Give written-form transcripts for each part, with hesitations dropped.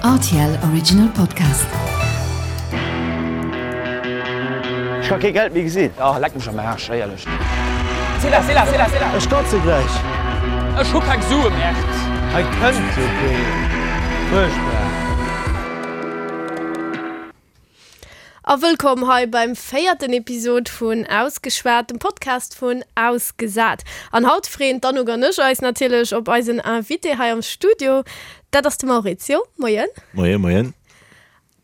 Rtl Original Podcast. Ech ka kee Geld méi gesinn. Oh, leck mech am Aarsch, éierlech. C'est là, c'est là, c'est là, c'est là. Ech kotze gläich. Ech hu keng Sue, Merde. Hei kënnt jo keen. Fuerchtbar. A wëllkomm hei beim véierten Episod vun Ausgeschwat, dem Podcast vun Ausgesat. An haut freeën d'Anouk an ech eis natierlech op eisen Invité hei am Studio. Dat ass de Maurizio. Moien. Moien, moien.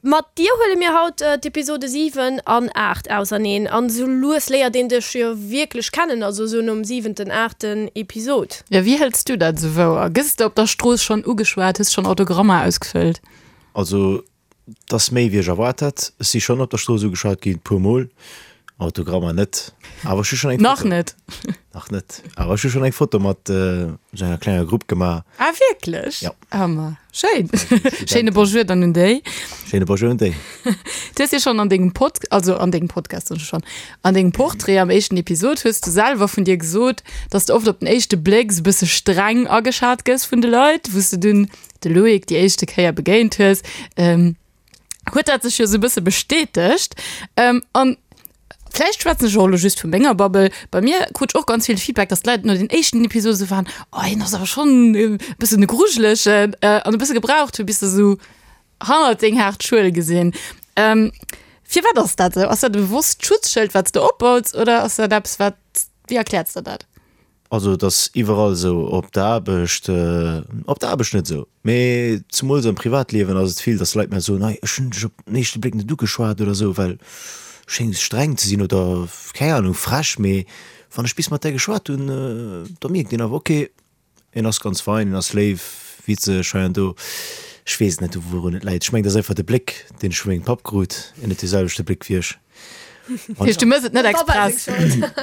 Mat dir huele mir haut d'Episode 7 an 8 auserneen. An esou lues léiert een dech jo wierklech kennen, also esou nom siwenten, aachten Episod. Jo, wéi hëls du dat esou wouer? Gëss de op der Strooss schonn ugeschwat? Hues schonn Autogrammer ausgefëllt? Also 't ass méi wéi ech erwaart hat. Ech si schonn op der Strooss ugeschwat ginn, puer mol. Autogrammer net, awer ech hu schonn eng Nach Foto. net? Nach net, awer ech hu schonn eng Foto mat esou enger klenger Grupp gemaach. Ah wierklech? Ja. Ah ma schéin. Schéine Bonjour dann un déi. Schéine Bonjour un déi. Du hues jo schonn an dengem Pod, also an dengem Podcast soen ech schonn, an dengem Portrait am éischten Episod hues du selwer vun dir gesot, dass de oft op den éischte Bléck esou bësse streng ageschat gëss vun de Leit, wou s de dunn de Loïc déi éischte Kéier begéint hues, huet dat sech jo sou e bësse bestätegt. An vläicht schwätzen ech och elo just vu menger Bubble, bei mir krut ech och ganz vill Feedback, dass d'Leit no den éischten Episode sou waren, oh hien ass awer schonn e bëssen e Grujelegen an e bësse gebraucht hu bis se sou hannert deng haart Schuel gesinn. Firwat ass dat esou? Ass dat e bewosst Schutzschëld wat s de opbaus oder ass dat eppes wat, wéi erkläers de dat? Also et ass iwwerall esou, op der Aarbecht, op der Aarbecht net esou, mee zemools am Privatliewen ass et vill, datt Leit mir soen, hei ech hunn dech op den éischte Bléck net ugeschwat oder esou, well schéngs streng ze sinn oder keng Ahnung, frech, mee wann ech bis mat där geschwat hunn, da mierkt een awer, ok, en ass ganz fein, en ass léif, witzeg hei an do. Ech weess et net, wourun et läit. Ech mengen, et ass einfach de Bléck, deen ech vu mengem Papp krut, en huet dee selwechte Bléck wéi ech. Heescht, du mëss et net express?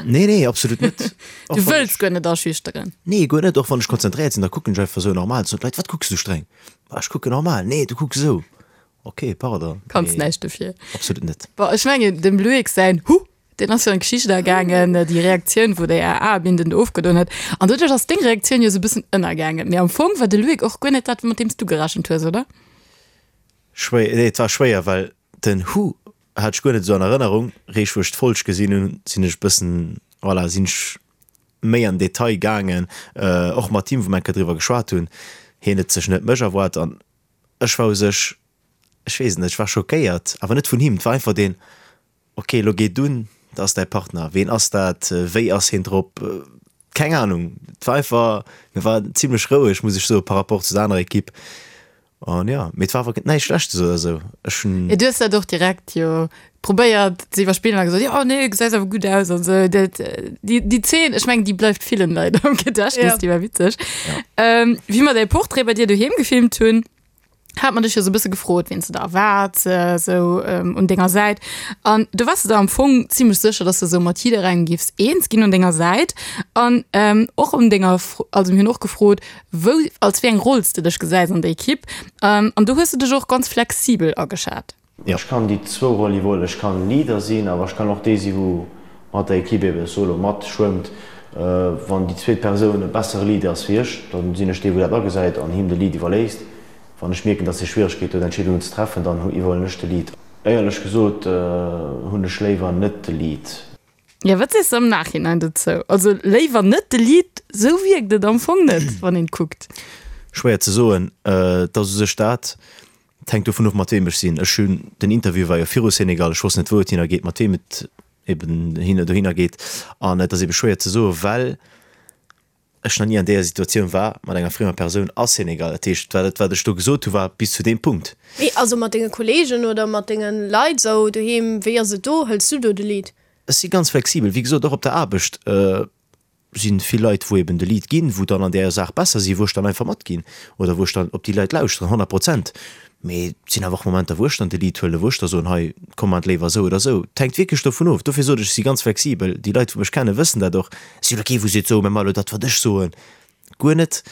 Nee, nee, absolut net. Du wëlls guer net aschüchteren? Nee, guer net. Och wann ech konzentréiert sinn, da kucken ech einfach esou normal. Soen d'Leit, wat kucks du streng? Ma ech kucken normal. Nee, du kucks esou. Ok, pardon. Kanns näischt dofir. Absolut net. Bon, ech mengen, dem Loïc säin Huh, deen ass jo an d'Geschicht agaangen, déi Reaktioun, wou déi AA-Binden do ofgedoen huet. An doduerch ass deng Reaktioun jo esou e bëssen ënnergaangen. Mee am Fong war de Loïc och guer net dat, mat deem s du gerechent hues, oder? Schwéier, nee, et war schwéier, well den Huh Hat ech guer net esou an Erënnerung. Réischt wou ech d'Folg gesinn hunn, sinn ech bëssen, voilà, sinn ech méi an Detail gaangen, och mat him, wou mer eng Kéier driwwer geschwat hunn. Hien huet sech net mech erwaart an ech war u sech, ech weess et net, ech war schockéiert, awer net vun him. Et war einfach deen, ok, elo geet un, dat ass däi Partner, ween ass dat, wéi ass hien drop, keng Ahnung. Et war einfach, mir war zimlech roueg, muss ech soen, par rapport zu der anerer Ekipp. An jo, mee et war awer näischt Schlechtes oder sou. Ech hunn. Jo, du hues dat och direkt jo probéiert ze iwwerspillen a gesot, jo nee, gesäis awer gutt aus an sou. Dat, déi, déi Zeen, ech mengen, déi bleift villen Leit am Gedächtnis, déi war witzeg. Wéi mer däi Portrait bei dir doheem gefilmt hunn, hat mer dech jo sou e bësse gefrot, wien s de da erwaarts sou un denger Säit. An du waars de der am Fong zimlech sécher, dass de sou mat jidderengem giffs eens ginn un denger Säit. An och un denger, also mir hunn och gefrot, Wou, als wéi eng Roll s de dech gesäis an der Ekipp an do hues de dech och ganz flexibel ageschat. Ech kann déi zwou Roll iwwerhuelen. Ech kann Leader sinn, awer ech kann och dee sinn, wou mat der Ekipp ebe solo matschwëmmt. Wann déi zweet Persoun e bessere Leader ass wéi ech, da sinn ech dee, wou dat agesäit an him de Lead iwwerléisst. Wann ech mierken, dass hie Schwieregkeete huet, Entscheedungen ze treffen, dann iwwerhuelen ech de Lead. Éierlech gesot hunn ech léiwer net de Lead. Jo, wat sees de am Nachhinein dozou? Also léiwer net de Lead, sou wierkt et am Fong net, wann een kuckt. Schwéier ze soen. Et ass u sech dat, et hänkt dovun of mat weem ech sinn. Ech hunn, den Interview war jo viru Senegal, ech wosst net wou et hinner geet, mat weem et eben dohinner geet an et ass ebe schwéier ze soen, well ech nach ni an deeër Situatioun war mat enger friemer Persoun a Senegal. Dat heescht, dat wat ech do gesot hu war bis zu deem Punkt. Mee also mat denge Kollegen oder mat denge Leit esou doheem, wéi ass et do? Hëls du do de Lead? Ech si ganz flexibel. Wéi gesot, och op der Aarbecht si vill Leit, wou eben de Lead ginn, wou dann an där Saach besser sinn, wou ech dann einfach matginn oder wou ech dann op déi Leit lauschteren, 100 Prozent. Mee et sinn awer och Momenter, wou ech dann de Lead huelen, wou ech da soen, hei, komm mat léiwer esou oder esou. Et hänkt wierklech dovun of. Dofir sot ech, ech si ganz flexibel. Déi Leit, wou mech kennen, wëssen dat och. Ech sinn elo kee, wou seet, so, mir maache elo dat, wat ech soen. Guer net.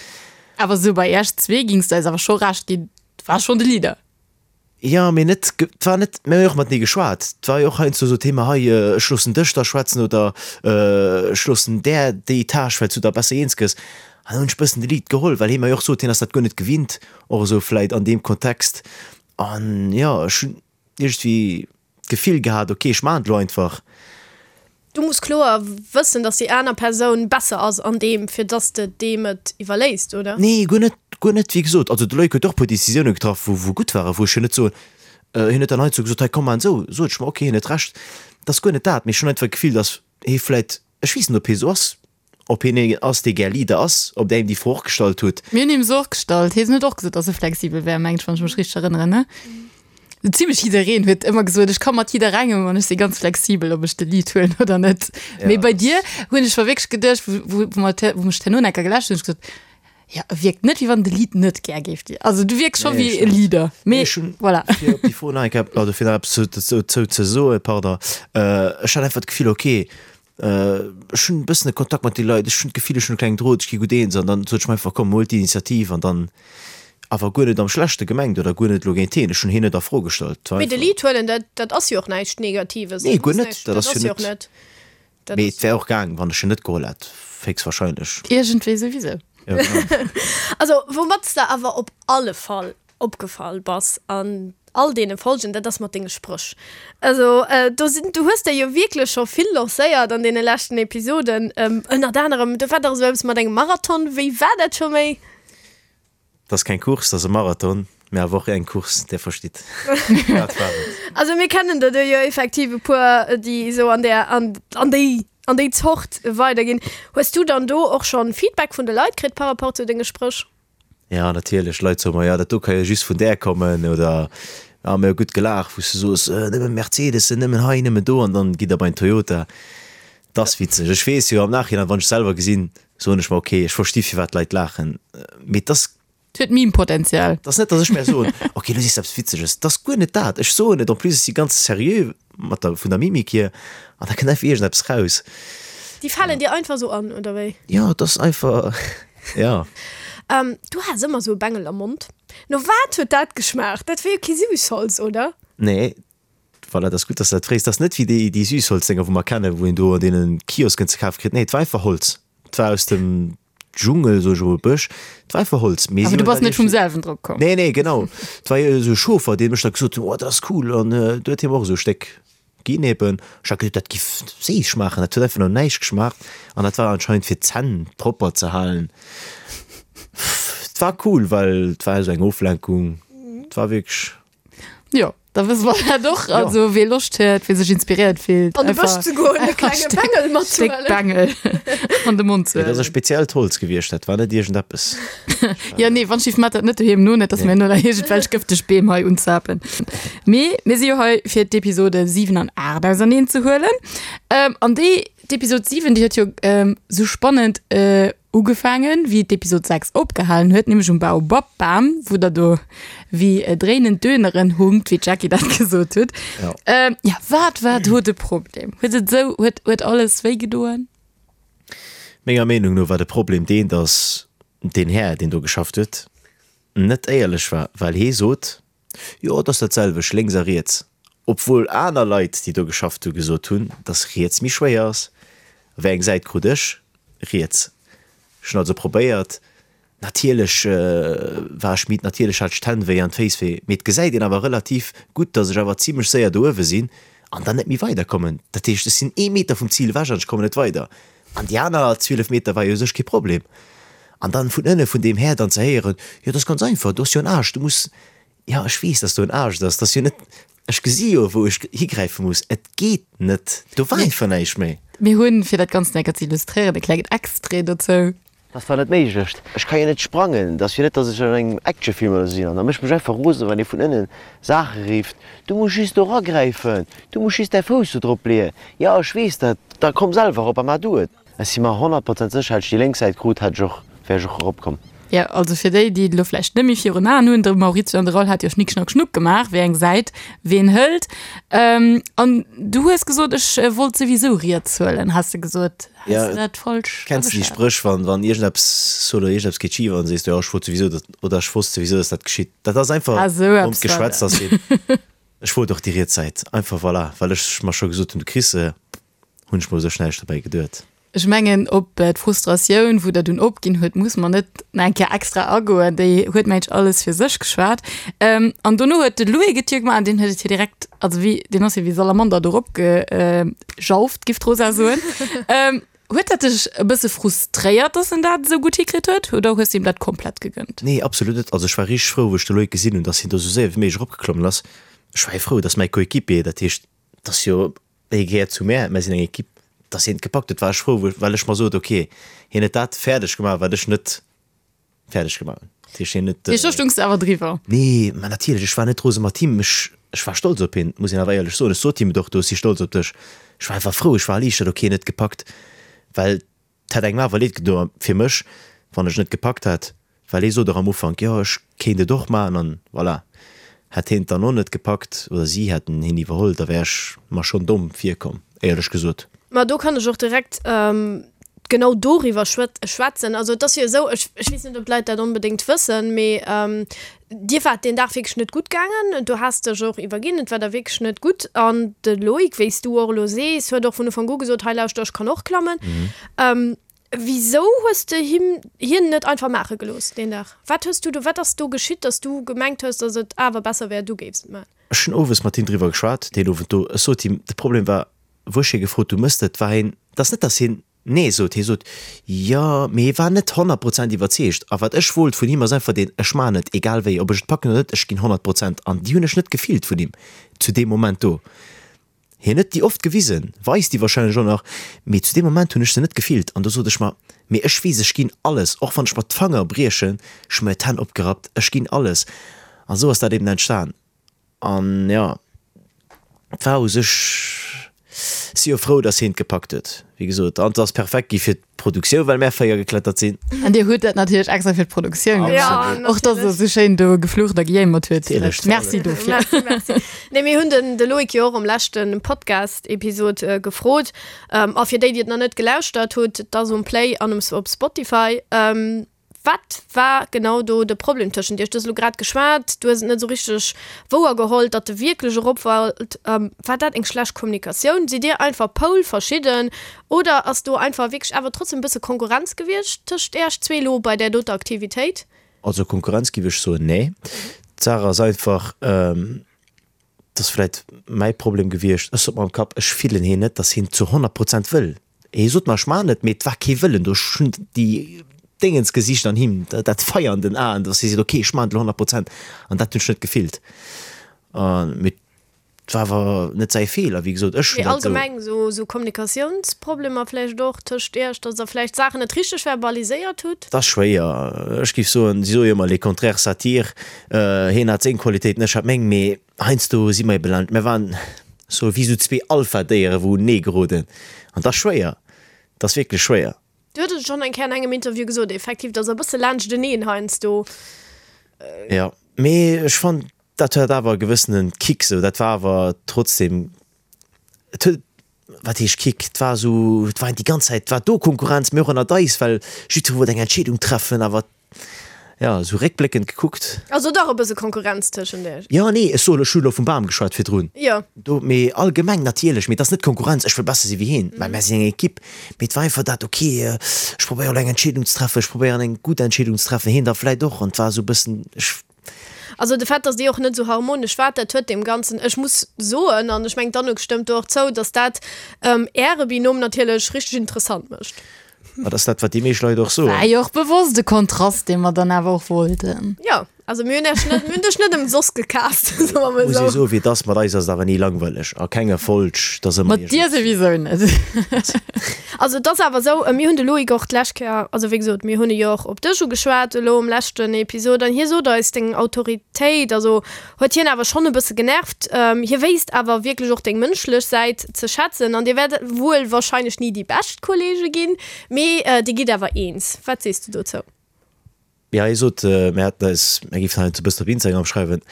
Awer esou bei Iech zwee gings de eis awer scho Recht ginn, du waars schonn de Leader. Jo, mee net, et war net, mir hu jo och matenee geschwat. Et war jo och heiansdo esou Thema, hei, ech loossen dech da schwätzen oder ech loossen där déi Tâche, well s du da besser eens gëss. An dann hunn ech bëssen de Lead geholl, well hie mer jo och sot, hien ass dat guer net gewinnt, och esou vläit an deem Kontext. An jo, ech hunn iergendwéi d'Gefill gehat, ok, ech maachen et elo einfach. Du muss kloer wëssen, dass déi aner Persoun besser ass an deem, fir dass de deem et iwwerléisst, oder? Nee, guer net, guer net. Wéi gesot, also de Loïc huet och e puer Decisioune getraff, wou, wou gutt waren, wou ech jo net soen, hien huet dann heiansdo gesot, hei komm, maan esou, sot ech mer, ok, hien huet Recht. Dat ass guer net dat, mee ech hunn einfach d'Gefill, dass hie vläit, ech weess net, ob hie esou ass, Ob hien een ass, dee gär Leader ass, ob der him déi Fro och gestallt hutt. Mir hunn him se och gestallt. Hien huet och gesot, dass e flexibel wär, mengen ech, wann ech mech richteg erënneren, ne? Zimlech jiddereen huet ëmmer gesot, ech ka mat jidderengem an ech si ganz flexibel, ob ech de Lead huelen oder net. Mee bei dir hunn ech mer wierklech geduecht, wou, wou mer, wou mech d'herno enker geläscht hunn, hunn ech gesot, jo, e wierkt net, wéi wann de Lead net gär géif dir. Also du wierks scho wéi e Leader. Mee voilà. Fir op déi Fro nach eng Kéier, also fir nach eppes dozou ze soen, pardon, ech hat einfach d'Gefill, okay, Ech hunn e bëssen e Kontakt mat de Leit, ech hunn d'Gefill, ech hunn e klengen Drot, ech gi gutt eens an dann sot ech mer einfach, komm, huel d'Initiativ an dann awer guer net am Schlechte gemengt oder guer net elo géint hien, ech hunn hien net a Fro gestallt. Et war Mee de einfach. Lead huelen, dat, dat ass jo och näischt Negatives. Nee, guer net, dat ass jo net, mee et wär och gaang, wann ech en net geholl hätt, héchstwahrscheinlech. Iergendwéi souwisou. Jo, genau. Also, woumat s de awer op alle Fall opgefall bass an all deene Folgen, dat ass mat denge Spréch. Also do sinn, du hues der jo wierklech scho vill lancéiert an deene leschten Episoden, ënnert anerem, do war dach esou eppes mat engem Marathon, wéi war dat scho méi? Dat ass keng Course, dat ass e Marathon, mä awer och eng Course, där verstitt. Dat war et. Also mir kennen der do jo effektiv e puer, déi esou an där, an, an déi, an déi Zort weiderginn. Hues du dann do och schonn Feedback vun de Leit kritt par rapport zu denge Spréch? Ja, natierlech. Leit soe mer, jo, dat do ka jo just vun där kommen oder ah, mir hu gutt gelaacht, wou s du soos, nëmme Mercedesen, nëmmen hei, nëmmen do an dann gitt der bei en Toyota. Dat ass witzeg. Ech weess jo am Nachhinein, wann ech selwer gesinn, soen ech mer, okay, ech versti firwat d'Leit laachen, mee et ass. Et huet Meme-Potenzial. Et ass net, datt ech mer soen, okay, lo sees de eppes Witzeges. Et ass guer net dat. Ech soen et, en plus ech si ganz seriö mat der, vun der Mimik hier an da kënnt einfach iergendeppes raus. Déi falen dir einfach sou an, oder wéi? Jo, et ass einfach, ja. Du has ëmmer sou e Bengel am Mond. No wat huet dat geschmaacht? Dat war jo kee Süßholz, oder? Nee, voilà, dat ass gutt, dass de dat frees. Dat ass net wéi déi, déi Süßholzdénger, wou mer kennen, wou een do an deene Kiosken ze kafe kritt. Nee, et war einfach Holz. Et war aus dem Dschungel, soe ech emol, Bësch. Et war einfach Holz. Mee Awer du bass net vum selwen drop komm? Nee, nee, genau. Et war jo esou e Chauffer, dee mech da gesot huet, oh, dat ass cool. An du huet hie mer och esou e Stéck Ginn eben. Ech hat geduet, dat giff séiss schmaachen. Dat huet einfach no näischt geschmaacht. An dat war anscheinend fir d'Zänn propper ze halen. Et war cool, well et war esou eng Oflenkung. Et war wierklech. Jo, da wësse mer dat och. Also wee Loscht huet, wee sech inspiréiert fillt, An de Bësch ze goen, e klenge Bengel matzehuelen. Stéck Bengel an de Mond ze Et ass e speziellt Holz gewiescht, dat war net iergendeppes. Jo, nee, wann schief mat dat net doheem no, net dass mir no nach iergendwelch gëfteg Beem hei unzapen. Mee mir si jo hei fir d'Episode 7 an 8 auserneen ze huelen. Ähm, an déi, d'Episod 7, déi huet jo ähm, sou spannend äh, ugefaangen, wéi d'Episod 6 opgehalen huet, nämlech um Baobab-Bam, wou der do wéi äh, dréinend Döneren hunkt, wéi d'Jackie dat gesot huet. Ja. Ähm, ja, wat war do de Problem? Huet et sou, huet, huet alles wéi gedoen? Menger Meenung no war de Problem deen, dass deen Här, deen do geschafft huet, net éierlech war, well hee sot, Jo, et ass dat selwecht lénks a riets, obwuel aner Leit, déi do geschafft hu gesot hunn, dass riets méi schwéier ass. Wéi eng Säit krut ech? Riets. Ech hunn also probéiert, natierlech war ech midd, natierlech hat ech d'Hänn wéi an d'Féiss wéi, mee et gesäit een awer relativ gutt, dass ech awer zimlech séier do uewe sinn an dann net méi weiderkommen. Dat heescht, ech sinn ee Meter vum Zil ewech an ech kommen net weider. An déi aner 12 Meter war jo u sech kee Problem. An dann vun ënne vun deem Här dann ze héieren, jo dat ass ganz einfach, do ass jo en Aascht, du muss, jo ech weess, dass do en Aascht ass, dat ass jo net, ech gesi jo wou ech higräife muss, et geet net, do war einfach näischt méi. Mir hunn, fir dat Ganzt enker ze illustréieren, e klengen Extrait dozou. Dat ass dach net méiglech, ech ka jo net sprangen, et ass jo net, dass ech an engem Actionfilm oder sou sinn. An da mécht mech einfach rosen, wann ee vun ënnen Saache rifft, Du muss just do eragräifen, du muss just däi Fouss do drop leeën. Jo, ech weess dat, da komm selwer erop a maach du et. Ech si mer 100 Prozent sécher, hätt ech déi lénk Säit krut, hätt ech och, wär ech och eropkomm. Jo, also fir déi, déi et elo vläicht net méi virun Aen hunn, de Maurizio an de Raoul hat jo Schnick Schnack Schnuck gemaach, wéi eng Säit ween hëlt. An du hues gesot, ech wollt souwisou riets huelen, has de gesot. Has Ja, de dat falsch Kenns du déi ageschat? Spréch, wann, wann iergendeppes oder iergendeppes geet schif an sees du, jo, ech wollt souwisou, datt, oder ech wosst souwisou, datt dat geschitt. Dat ass einfach Ah, sou ronnt eppes war geschwätzt, dat. ass wéi, ech wollt och déi riets Säit. Einfach voilà, well ech mer scho gesot hunn, du kriss se, hunn ech mer u sech näischt dobäi geduet. Ech mengen op d'Frustratioun, wou der dunn opginn huet, muss mer net nach eng Kéier extra agoen. Déi huet mengen ech alles fir sech geschwat. An dono huet de Louis Getier gemaach an deen huet et jo direkt, also wéi, deen ass jo wéi Salamander do erop gejauft, giff d'Rosa soen. Huet dat dech e bësse frustréiert, dass en dat esou gutt hikritt huet, oder hues de him dat komplett gegënnt? Nee, absolut net. Also ech war richteg frou, wou ech de Loïc gesinn hunn, dass hien do esou séier wéi méiglech eropgeklommen ass. Ech war jo frou, dass mäi Coéquipier, dat heescht, dass jo hie gehéiert zu mär, mär sinn eng Equipe, dass hien et gepackt huet, war ech frou, well ech mer sot, ok, hien huet dat fäerdeg gemaach, wat ech net fäerdeg gemaach hunn. Dat heescht, hien huet. Mee do stungs de awer driwwer? Nee, mä natierlech, ech war net rose mat him. Ech, ech war stolz op hien, muss een awer éierlech soen. Ech sot him et och do, ech si stolz op dech. Ech war einfach frou, ech war erliichtert, ok, hien huet gepackt, well et hätt engem awer leed gedoen fir mech, wann ech net gepackt hätt, well hie sot och am Ufank, jo, ech kéint et och maachen an voilà. Hätt hien et dann och net gepackt oder si hätten hien iwwerholl, da wär ech mer schonn domm virkomm, éierlech gesot. Ma do kann ech och direkt genau doriwwer schwätzen. Also et ass jo esou, ech weess net, ob d'Leit dat onbedéngt wëssen, mee dir waart deen Dag wierklech net gutt gaangen. Du has dech och iwwerginn, et war der wierklech net gutt. An de Loïc, wéi s du och elo sees, huet och vun Ufank u gesot, hei lauschter, ech kann och klammen. Wisou hues de him hien net einfach maache gelooss deen Dag? Wat hues du do, wat ass do geschitt, datt du gemengt hues, datt et awer besser wär, du géifs et maachen? Ech hunn owes mat him driwwer geschwat, deen Owend do. Ech sot him, de Problem war, wou ech hie gefrot hu, Mëss de et, war hien, et ass net, datt hien Nee sot, hie sot, Jo, mee hie war net 100 Prozent iwwerzeegt. A wat ech wollt vun him ass einfach deen, Ech maachen et, egal wéi, ob ech et packen oder net, ech ginn 100 Prozent. An déi hunn ech net gefillt vun him zu deem Moment do. Hien huet déi oft gewisen, weist déi wahrscheinlech och nach, mee zu deem Moment hunn ech se net gefillt. An do sot ech mer, Mee ech weess, ech ginn alles, och wann ech mer d'Fanger briechen, ech hu mir d'Hänn opgerappt, ech ginn alles. An esou ass dat eben entstan. An jo, et war u sech, si jo frou, dass hien et gepackt huet, wéi gesot. An et ass perfekt gi fir d'Produktioun, well mär 4 geklettert sinn. An dir hutt dat natierlech extra fir d'Produktioun gemaach. Och dass der esou schéin do geflucht a gejéimert huet. Natierlech. Merci dofir. Merci, merci. Nee, mir hunn den de Loïc jo och am leschte Podcast-Episod gefrot. A fir déi, déi et nach net gelauschtert hutt, et ass um Play an um op Spotify. Wat war genau do de Problem tëschent iech? Du hues elo grad geschwat, du hues et net esou richteg wouer geholl, datt e wierklech erop wollt. War dat eng schlecht Kommunikatioun? Sidd dir einfach poulverschidden oder ass do einfach wierklech awer trotzdem e bësse Konkurrenz gewiescht tëscht iech zwee elo bei där doter Aktivitéit? Also Konkurrenz giff ech soen, nee. D'Saach ass einfach, Et ass vläit mäi Problem gewiescht, ech sot mer am Kapp, ech fillen hien net, datt hien zu 100 Prozent wëll. Hie sot mer, ech maachen et, mee et war kee Wëllen do. Ech hunn déi Déngens gesicht an him, dat Feier an den Aen, datt hie seet, ok, ech maachen et elo 100 Prozent. An dat hunn ech net gefillt. Mee et war awer net säi Feeler, wéi gesot, ech hunn dat esou. Mee allgemeng esou Kommunikatiounsproblemer vläicht och tëscht iech, datt der vläicht Saachen net richteg verbaliséiert hutt? Et ass schwéier. Ech géif soen, si soe jo ëmmer, les contraires s'attirent. Hien hat seng Qualitéiten, ech hat meng, mee heiansdo si mer ebe laanscht, mir waren sou wéi sou zwee Alpha-Déiere wou unenee geroden an dat ass schwéier, dat ass wierklech schwéier. Du huet et schonn eng Kéier an engem Interview gesot, effektiv, datt der e bësse laanschteneen heiansdo. Jo, mee ech fannen, dat hat awer e gewëssene Kick sou, dat war awer trotzdem, et huet, wat heescht Kick, et war esou, et war déi ganz Zäit war do Konkurrenz, mee och ënnert eis, well jiddweree wollt eng Entscheedung treffen, awer jo, esou réckbléckend gekuckt. Also dach e bësse Konkurrenz tëschent iech? Jo, nee, ech soen, ech hu elo vum Bam geschwat virdrun. Jo. Do, mee allgemeng natierlech, mee et ass net Konkurrenz, ech wëll besser si wéi hien, well mär sinn eng Ekipp, mee et war einfach dat, ok, ech probéieren elo eng Entscheedung ze treffen, ech probéieren eng gutt Entscheedung ze treffen, hien da vläit och, an et war esou e bëssen, ech. Also de Fait, dass déi och net esou harmonesch war, dat huet deem Ganzen, ech muss soen, an ech mengen d'Anouk stëmmt do och zou, dass dat Äre Binôme natierlech richteg interessant mécht. Dat ass dat, wat déi meescht Leit och soen. War jo och bewosst e Kontrast, dee mer dann awer och wollten. Jo, also mir hunn Iech net, mir hunn dech net ëmsoss gecast, soe mer mol Muss ee esou. soen, wéi et ass, mat eis ass et awer ni langweileg, a kenger Folg, et ass ëmmer Mat dir souwisou net. Also et ass awer esou, mir hunn de Loïc och d'lescht Kéier, also wéi gesot, mir hunn e jo och op dech ugeschwat elo um leschten Episod an hie sot eis, deng Autoritéit, also huet hien awer schonn e bësse genervt. Hie wéisst awer wierklech och deng mënschlech Säit ze schätzen an dir wäert wuel wahrscheinlech ni déi bescht Kollege ginn, mee dir gitt awer eens. Wat sees du dozou? Jo, hie sot, mir hätten eis, mir géifen hei e bëssen op Instagram schreiwen,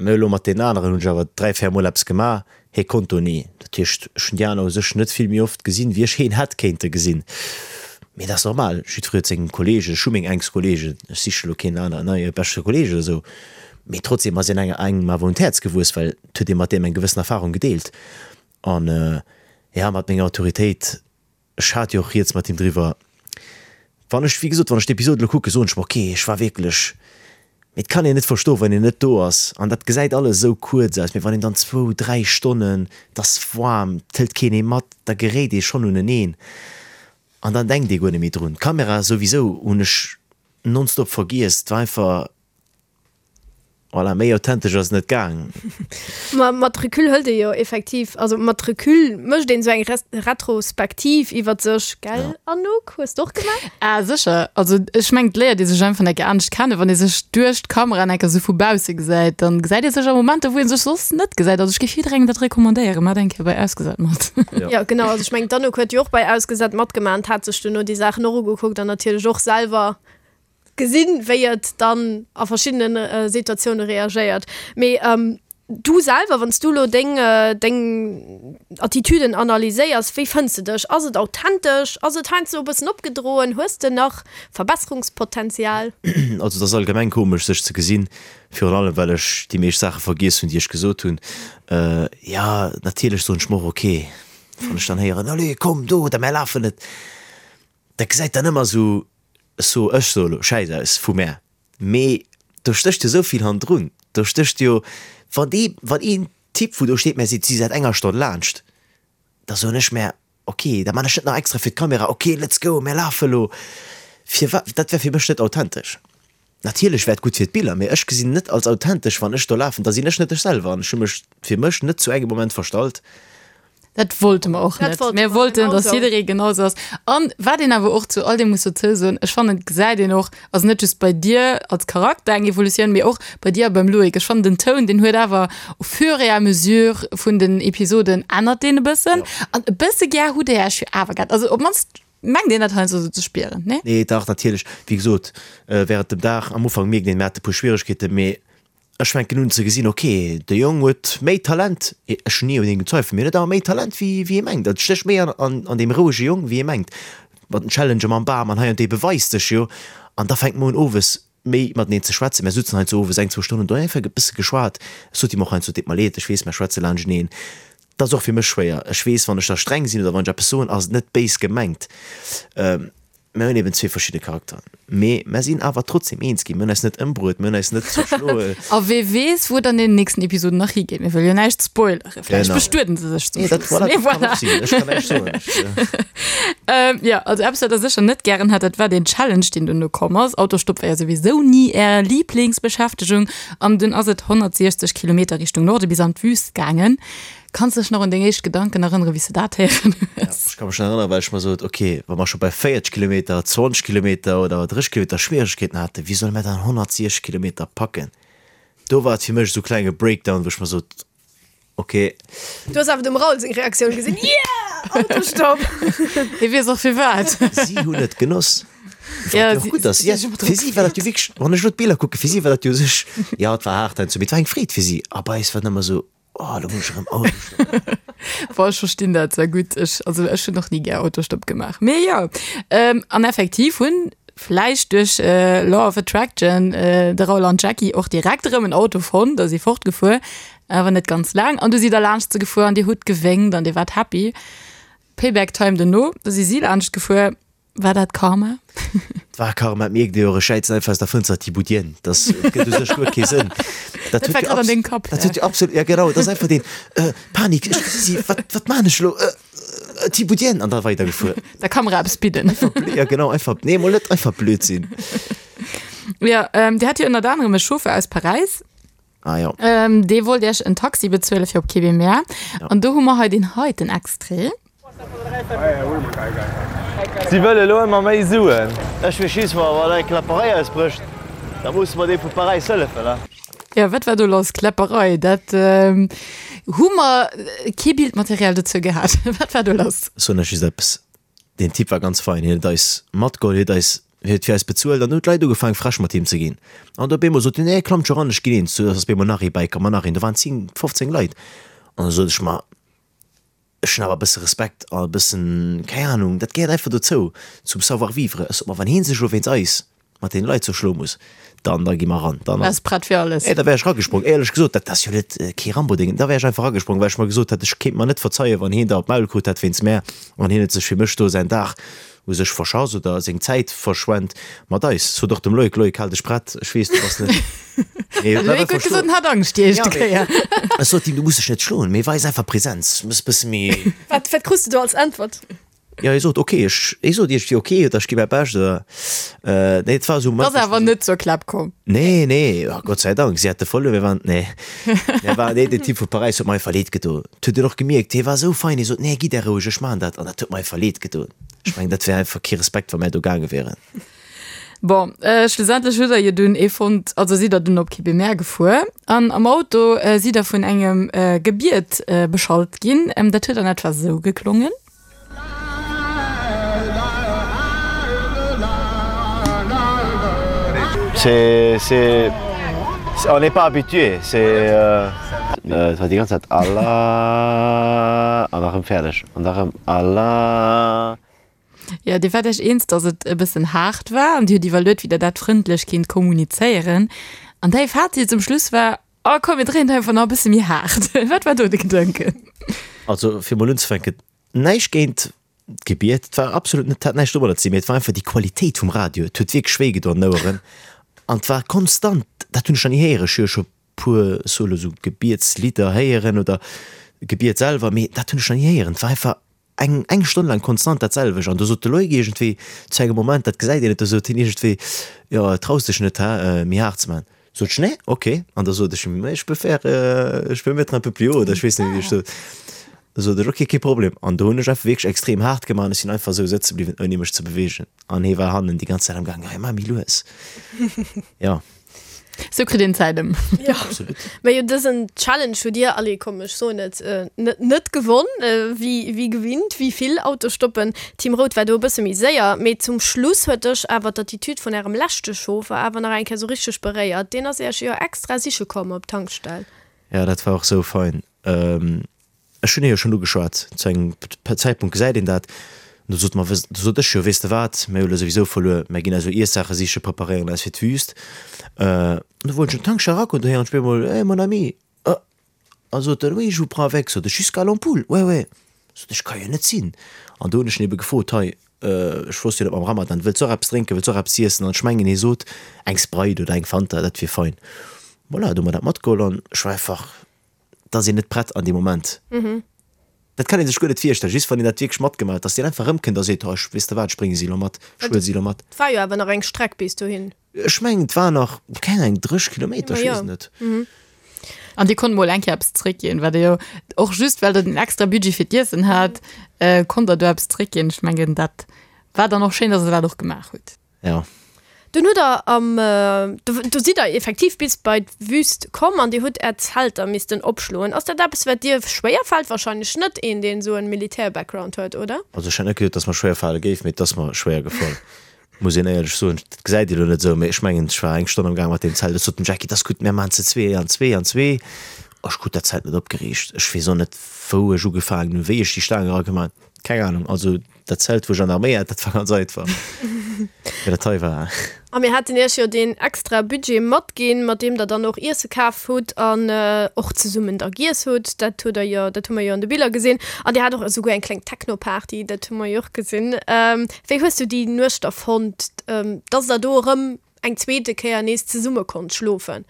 mä elo mat deenen aneren hunn ech awer 3, 4 Mol eppes gemaach, hie konnt do ni. Dat heescht, ech hunn déi aner u sech net vill méi oft gesinn, wéi ech hien hätt kéinte gesinn. Mee dat ass normal, jiddweree huet seng Kolleegen, ech hu meng enkst Kolleegen, ech siche elo keen aneren neie beschte Kolleeg oder esou, mee trotzdem ass een engem awer un d'Häerz gewuess, well et huet ee mat deem eng gewëssen Erfarung gedeelt. An jo, mat menger Autoritéit. Ech hat jo och rieds mat him driwwer. Wann ech, wéi gesot, wann ech d'Episod elo kucken, soen ech mer, ok, ech war wierklech, mee et kann een net verstoen, wann een net do ass an dat gesäit alles esou kuerz aus, mee wann een dann zwou, dräi Stonnen, et ass waarm, et hëlt keen ee mat, da geréit ee schonn uneneen an dann denkt ee guer net méi drun. D'Kamera souwisou hunn ech nonstop vergiess, et war einfach. Voilà, méi authentesch ass et net gaang. Ma mat Recul hëlt ee jo effektiv, also mat Recul mécht een esou eng Retrospektiv iwwert sech, gell Anouk? Hues de och gemaach? Ah sécher, also ech mengen et léiert ee sech einfach enke anescht kennen, wann ee sech duerch d'Kamera enke sou vu bausse gesäit, dann gesäit ee sech a Momenter wou ee sech soss net gesäit. Also ech géif jidderengem dat recommandéieren, maacht eng Kéier bei Ausgesat mat. Jo genau, also ech mengen d'Anouk huet jo och bei Ausgesat matgemaach an hat sech duerno déi Saachen och ugekuckt an natierlech och selwer Gesinn, wéi et dann a verschiddene Situatioune reagéiert. Mee du selwer, wann s du elo deng, deng Attitüden analyséiers, wéi fënns de dech? Ass et authentesch? Ass et heiansdo e bëssen opgedroen? Hues de nach Verbesserungspotenzial? Also et ass allgemeng komesch sech ze gesinn, virun allem well ech déi meescht Saache vergiess hunn, déi ech gesot hunn. Jo, natierlech soen ech mer och, ok, wann ech dann héieren, allez komm do oder mär lafen et, dat gesäit dann ëmmer esou So, ech soe lo, schäiss aus vu mär, mee do stécht jo esou vill hannendrun. Do stécht jo, wann dee, wann een Typ, wou do steet, mär seet, si säit enger Stonn laanscht, da soen ech mär, ok, da man ech net nach extra fir d'Kamera, ok, let's go, mär lafe lo. Firwat, dat wär fir mech net authentesch. Natierlech wär et gutt fir d'Biller, mee ech gesinn net als authentesch, wann ech do lafen, da sinn ech net ech selwer an ech hu mech fir mech net zu engem Moment verstallt. Dat wollte mer och net. Mir wollten, dass jidderee genau esou ass. An wat een awer och zu all deem muss dozou soen, ech fannen, et gesäit een och, also net just bei dir als Charakter eng Evolutioun, mee och bei dir a beim Loïc. Ech fannen den Toun, deen huet awer au fur et à mesure vun den Episoden ännert deen e bëssen. An e bësse gär hutt Dir Iech jo awer gehat. Also op d'mannst mengt een dat heiansdo esou ze spieren, nee? Nee, dach, natierlech. Wéi gesot, während dem Dag, am Ufank mierkt een, mir hate e puer Schwieregkeeten, mee Ech fänken un ze gesinn, ok, de Jong huet méi Talent, ech hunn ni un him gezweifelt, mee en huet awer méi Talent wéi wéi ee mengt. Et stécht méi an an deem rouege Jong wéi ee mengt. Mat den Challenge mam Bam an hei an dee beweist sech jo. An da fänke mer un owes méi mateneen ze schwätzen. Mär sutzen heiansdo owes eng, zwou Stonnen do einfach e bësse geschwat. Ech sot him och heiansdo, et deet mer leed, ech weess, mär schwätze laanschteneen. Dat ass och fir mech schwéier. Ech weess, wann ech da streng sinn oder wann ech eppes soen, ass et net béis gemengt. Mir hunn eben zwee verschidde Charakteren, mee mer sinn awer trotzdem eens ginn. Mir hunn eis net ëmbruet, mir hunn eis net zerschloen. A wee weess, wou et an deenen nächsten Episoden nach higeet. Mir wëlle jo näischt spoileren. Vläicht Genau. bestueden se sech zum Nee, dat, Schluss. voilà, Mee dat kann voilà. och sinn. Ech kann näischt soen. Ech, Ähm, jo, also eppes, wat der sécher net gären hat, dat war deen Challenge, deen duerno komm ass. Autostopp war jo souwisou ni är Liblingsbeschäftegung. An dunn ass et 160 Kilometer Richtung Norde bis an d'Wüst gaangen. Kanns dech nach un deng éischt Gedanken erënneren, wéi s de dat héieren hues? Ech ka mech nach erënneren, well ech mer sot, ok, wa mer scho bei 40 Kilometer, 20 Kilometer oder 30 Kilometer Schwieregkeeten haten, wéi solle mer dann 160 Kilometer packen? Do war et fir mech esou klenge Breakdown, wou ech mer sot, ok. Du hues awer dem Raoul seng Reaktioun gesinn, Yeah! Autostopp! Hie weess och firwat. Si hunn et genoss. Wat Ja, jo och si- gutt ass. si Ja, si fir si war dat jo wierklech, wann ech elo d'Biller kucken, fir si war dat jo u sech, jo, et war haart heiansdo, mee et war eng Freed fir si. A bei eis war et ëmmer esou, Oh, lo muss ech erëm Autostopp. Boah, ech verstinn dat sehr gutt. Ech, also ech hunn och ni gär Autostopp gemaach. Mee jo, ähm, an effektiv hunn vläicht duerch äh, Law of Attraction äh, de Raoul an d'Jackie och direkt erëm en Auto fonnt a si fortgefuer, awer net ganz laang. An du sidd der laanscht se gefuer an dir hutt gewénkt an dir waart happy. Payback Time duerno, du si si laanscht gefuer. War dat Karma? Et war Karma, et mierkt ee jo och, ech schäizen einfach aus der Fënster, Thibout-Dien, das gëtt u sech guer kee Sënn. Dat Dat war huet jo grad an abs dengem Kapp, dat ja. huet jo absolut, ja genau, dat ass einfach deen, äh, Panik, ech gesi si, wat, wat maan ech elo, äh, Thibout-Dien, an da weidergefuer. Der Kamera eppes bidden. Einfach blöd, ja genau, einfach, nee, mol net einfach Blödsinn. Ja, ähm, Dir hat jo ënnert anerem e Chauffeur aus Paräis. Ah jo. Ähm, dee wollt Iech en Taxi bezuele fir op Kébémer. An do hu mer hei deen heiten Extrait. Si wëlle elo ëmmer méi Suen. Ech weess just, wa wann eng Kläpperei ausbrécht, da musse mer deem vu Paräis hëllefen, ne? Jo, wat war do lass? Kläpperei, dat hu mer kee Bildmaterial dozou gehat. Wat war do lass? Ech soen lech just eppes, Deen Typ war ganz fein, hien huet eis matgeholl, hien huet eis, hien huet fir eis bezuelt an du hunn d'Leit ugefaangen frech mat him ze ginn. An op eemol sot hien, nee klammt scho ran, ech ginn eens. Du ass op eemol nach ee bäikomm an nach een, do waren 10, 15 Leit. An da sot ech mer, ech hunn awer e bësse Respekt a e bëssen, keng Ahnung, dat gehéiert einfach dozou, zum Savoir-vivre. Ech sot mer, wann hien sech elo wéinst eis. mat deene Leit zerschloe muss, dann, da gi mer ran. Dann Wars prett fir alles. Nee, da wär ech ragesprong. Éierlech gesot, dat ass jo net kee Rambo-Ding. Da wär ech einfach ragesprong, well ech mer gesot hätt, ech kéint mer net verzeien, wann hien der op d'Maul krut hätt wéinst mär an hien huet sech fir mech do säin Dag u sech verschass oder seng Zäit verschwent mat eis. Sot och dem Loïc, Loïc, hal dech prett, ech weess, du bass net. Nee, huet Loïc huet gesot, en hat Angscht déi éischte Kéier. Ech sot him, du muss dech net schloen, mee weis einfach Präsenz, muss e bësse méi. Wat, wat krus de do als Äntwert? Jo, hie sot ok, ech, hie sot iergendwéi ok oder ech gi mäi Bescht oder, nee, et war esou. Ass awer net zur Klapp komm. Nee, nee, oh Gott sei Dank, si hate verluer, mir waren, nee, mir waren, nee, den Typ vu Paräis huet mer einfach leed gedo. Et huet een och gemierkt, hie war esou fein, hie sot, nee, gitt Är roueg, ech maachen dat, an dat huet mer einfach leed gedoen. Ech mengen, dat wär einfach kee Respekt, wa mär do gaange wieren. Bon, schlussendlech hutt der jo dunn ee fonnt, also sidd der dunn op Kébémer gefuer an am Auto sidd der vun engem Gebiet beschallt ginn. Dat huet an etwa sou geklongen. C'est, c'est, on n'est pas habitué, c'est, et war déi ganz Zäit Allah an da rëm fäerdeg an da rëm Allah. Jo, Dir waart Iech eens, datt et e bëssen haart war an Dir hutt iwwerluet, wéi Der dat frëndlech kinnt kommunizéieren. An däi Fazit zum Schluss war, Oh komm, mir dréien et einfach nach e bësse méi haart. Wat war do de Gedanken? Also fir mol unzefänken, näischt géint d'Gebiet, et war absolut net, hat näischt domadder ze dinn, mee et war einfach déi Qualitéit vum Radio, et huet wierklech wéi gedoen an den Oueren an et war konstant, dat hunn ech nach ni héieren, ech hu jo scho puer solo sou Gebietslidder héieren oder Gebiet selwer, mee dat hunn ech nach ni héieren, et war einfach eng eng Stonn laang konstant dat selwecht an do sot de Loïc iergendwéi zu engem Moment, dat gesäit een net, do sot hien iergendwéi, jo traus dech net, hä, méi haart ze maachen. Sot ech, nee, ok. An da sot ech, mais je peux faire, je peux mettre un peu plus haut oder ech weess net wéi ech sot. Da sot ech, ok, kee Problem. An do hunn ech einfach wierklech extrem haart gemaach an ech sinn einfach esou sëtze bliwwen ouni mech ze beweegen an hie war hannen déi ganz Zäit am gaangen, hei maach méi lues. Jo. Sou kritt een Zäit ëm. Ja. Absolut. Mä jo, dësen Challenge hutt Dir, allez komm, ech soen et, net, net gewonn, wéi, wéi gewinnt, wéi vill Autostoppen. Team Rout war do e bësse méi séier, mee zum Schluss huet dech awer d'Attitude vun Ärem leschte Chauffer awer nach eng Kéier sou richteg beréiert. Deen ass Iech jo extra siche komm op d'Tankstell. Ja, dat war och sou fein. Ech hunn hie jo schonn ugeschwat, zu engem Zäitpunkt gesäit een dat, an do sot mer, do sot ech jo, weess de wat, mir hu lo souwisou verluer, mär ginn eis elo Iessaache siche, preparéieren eis fir d'Wüst. An do wollt ech an d'Tankstell eragoen, do héieren ech op eemol, Hey, mon ami! Oh! A sot en, Oui, je vous prends avec. Sot ech, Jusqu'à l'ampoule? Ouais, ouais. Sot ech, Ka jo net sinn. An do hunn ech en ebe gefrot, Hei, ech wosst jo net mam Ramadan, wëlls och eppes drénken, wëlls och eppes iessen? An ech mengen, hie sot, eng Sprite oder eng Fanta, dat wier fein. Voilà, do hu mer dat matgeholl an ech war einfach Et ass een net prett an deem Moment. Dat kann ee sech guer net virstellen, just wann een dat wierklech matgemaach huet, dass deen einfach erëmkënnt a seet, oh, ech, weess de wat, ech brénge si elo mat, ech huele si elo mat. Et war jo awer nach eng Streck bis dohin. Ech mengen, et war nach, keng Ahnung, 30 Kilometer, ech weess et net. An Dir konnt mol eng Kéier eppes zréckginn, wat Dir jo och just well Der den extra Budget fir d'Iessen hat, konnt Der do eppes zréckginn. Ech mengen, dat war dann och schéin, dass Der dat och gemaach hutt. Ja. Dunn hutt der am, do sidd der effektiv bis bei d'Wüst komm an dir hutt är Zelter missten opschloen. Ass dat eppes wat dir schwéier fält? Wahrscheinlech net, een deen esou en Militär-Background huet, oder? Also ech hätt net geduet, dass mer schwéier fale géif, mee et ass mer schwéier gefall, muss een éierlech soen. Dat gesäit ee lo net esou, mee ech mengen ech war eng Stonn am Gaang mat deem Zelt. Ech sot dem Jackie, et ass gutt, mir maachen ze zwee an zwee an zwee. Ech krut dat Zelt net opgeriicht. Ech weess och net wou ech ugefaangen hunn, wéi ech déi Staang eragemaach hunn, keng Ahnung. Also Dat Zelt wou ech an der Arméi hat, dat war ganz einfach. Mee dat hei war. A mir haten iech jo deen extra Budget matginn, mat deem der dann och Iesse kaf hutt an och zesummen da giess hutt. Dat hutt der jo, dat hu mer jo an de Biller gesinn. An dir hat och esouguer eng kleng Techno-Party, dat hu mer jo och gesinn. Wéi hues du déi Nuecht da fonnt, dass der do erëm eng zweete Kéier nees zesumme konnt schlofen?